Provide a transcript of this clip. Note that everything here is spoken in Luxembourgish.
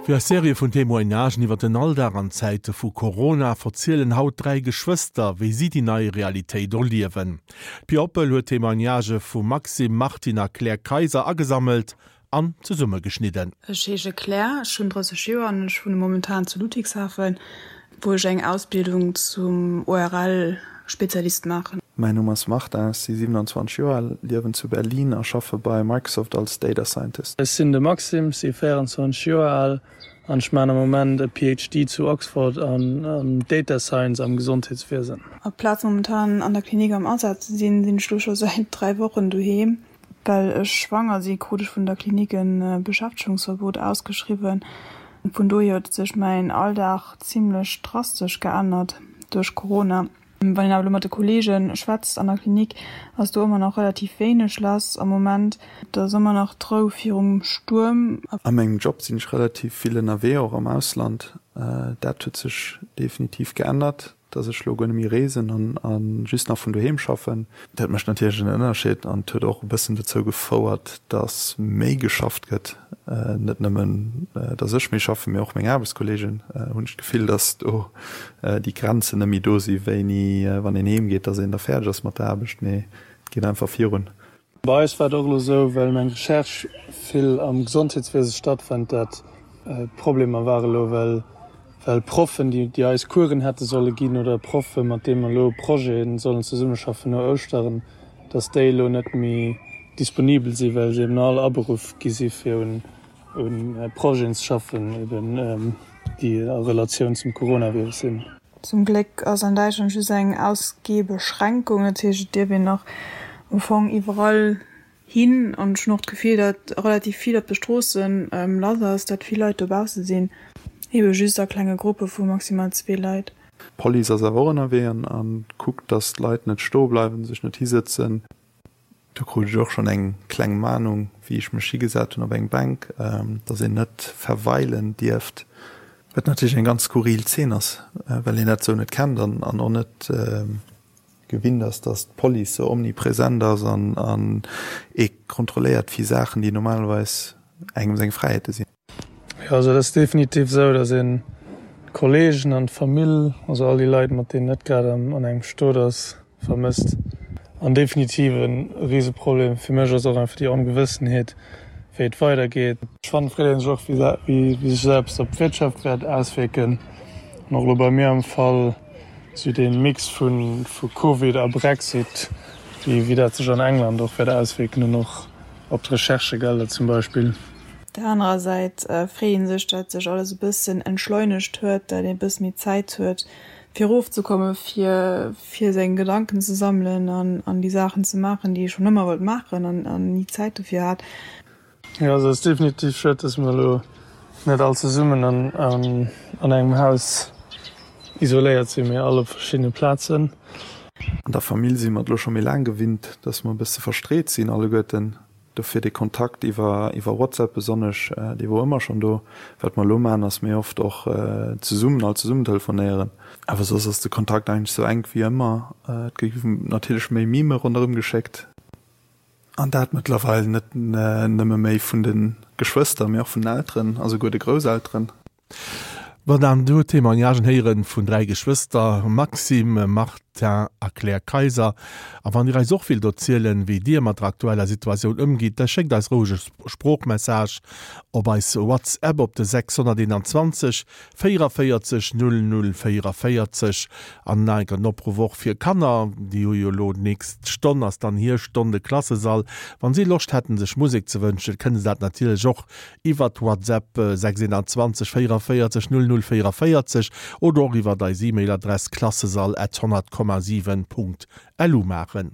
Fir eis Serie vun Témoignagen iwwer den Alldag an Zäite vu Corona verzielen haut 3 Geschwëster, wéi si déi nei Realitéit erliewen. D'Pia Oppel huet Témoignagë vum Maxime, Martine a Claire Kayser agesammelt an zesummegeschnidden. Ech heesche Claire, ech hunn 30 Joer an ech wunne momentan zu Ludwigshafen, wou ech eng Ausbildung zum ORL-Spezialist maachen. Mäin Numm ass Martin, ech si 27 Joer al, liewen zu Berlin a schaffe bei Microsoft als Data Scientist. Ech sinn de Maxime, si 24 Joer al an ech maachen am Moment e PhD zu Oxford an Data Science am Gesondheetswiesen. Aplaz momentan an der Klinik am Asaz ze sinn, sinn ech lo scho säit 3 Wochen doheem. Well ech schwanger si krut ech vun der Klinik e Beschäftegungsverbot ausgeschriwwen. Vun dohier huet sech mäin Alldag zimlech drastesch geännert duerch Corona. Wann een awer elo mat de Kolleege schwätzt an der Klinik, ass do ëmmer nach relativ wéineg lass am Moment. Et ass ëmmer nach d'Rou virum Stuerm. A mengem Job sinn ech relativ vill ënnerwee, och am Ausland. Dat huet sech definitiv geännert. dass ech lo guer net méi reesen an just nach vun doheem schaffen. Dat mécht natierlech en Ënnerscheed an et huet och e bëssen dozou gefouert, dass méi geschafft gëtt. Net nëmmen, dass ech méi schaffen, mee och meng Aarbechtskolleegen hunn ech d'Gefill, dass do déi Grenzen net méi do si wéini, wann een heem geet, dass een da fäerdeg ass mat der Aarbecht, mee et geet einfach virun. Bei eis war et och elo esou, well meng Recherche vill am Gesondheetswiese stattfënnt, dat Problemer ware elo, well well Proffen, déi déi eis Coursen hätte solle ginn oder Proffe mat deene mer elo Projete sollen zesummeschaffen no Ouschteren, datt déi elo net méi disponibel sinn, well se eben all aberuff gi si fir un un Projeten ze schaffen, eben déi a Relatioun zum Coronavirus sinn. Zum Gléck ass an Däitschland just eng Ausgehbeschränkung, dat heescht et dierf een nach am Fong iwwerall hin. An ech hunn och d'Gefill, datt relativ vill op de Stroosse lass ass, datt vill Leit dobausse sinn, ebe just a klenge Gruppe vu maximal zwee Leit. D'Police ass awer och ënnerwee an kuckt, datt d'Leit net stoe bleiwen, sech net hisëtzen. Do krut ech och schonn eng kleng Mahnung, wéi ech mech higesat hunn op eng Bänk, dass een net verweilen dierft. Wat natierlech eng ganz skurril Zeen ass, well een dat esou net kennt an och net gewinnt ass, dass d'Police sou omnipresent ass an ee kontrolléiert fir Saachen, déi normalerweis engem seng Fräiheete sinn. Jo, also et ass definitiv esou, datt een d'Kolleegen an d'Famill, also all déi Leit, mat deenen net grad an engem Stot ass, vermësst. An definitiv e Riseproblem fir mech ass och einfach déi Ongewëssenheet, wéi et weidergeet. Ech fannen, et freet ee sech och, wéi sech esou eppes op d'Wirtschaft wäert auswierken. An och elo bei mir am Fall, esou dee Mix vu Covid a Brexit, wéi dat sech an England och wäert auswierken an och op d'Recherchegelder zum Beispill. Op der anerer Säit freet ee sech, datt sech alles e bëssen entschleunegt huet, datt ee e bësse méi Zäit huet, fir erofzekommen, fir fir seng Gedanken ze sammelen an an déi Saachen ze maachen, déi ee schonn ëmmer wollt maachen an an ni Zäit dofir hat. Jo, also et ass definitiv schued, datt mer elo net all zesummen an an engem Haus isoléiert sinn, mee all op verschiddene Plazen. An der Famill si mer et elo scho méi laang gewinnt, datt mer e bësse verstreet sinn alleguerten. Dofir dee Kontakt iwwer iwwer WhatsApp besonnesch, dee wor ëmmer schonn do. Wat mer elo maachen, ass méi oft och zesummen, all zesummen telefonéieren. Awer soss ass de Kontakt eigentlech sou enk wéi ëmmer. Et gi natierlech méi Meme ronderëm geschéckt. An dat mëttlerweil net nëmme méi vun de Geschwëster, mee och vun den Elteren a souguer de Grousselteren. Wann dann do Témoignagen héieren vun 3 Geschwëster, Maxime, Martin a Claire Kayser. A wann dir eis och willt erzielen, wéi dir mat der aktueller Situatioun ëmgitt, da schéckt eis roueg e Sproochmessage op eis WhatsApp op de 621 44 00 44. An nach enker den Opruff och fir Kanner, déi hu jo elo d'nächst Stonn ass dann hir Stonn, de Klassesall. Wann si Loscht hätten sech Musek ze wënschen, kënne se dat natierlech och iwwert WhatsApp 621 44 00 44 oder och iwwert eis E-Mail Adress klassesall at 100,7 Punkt lu maachen.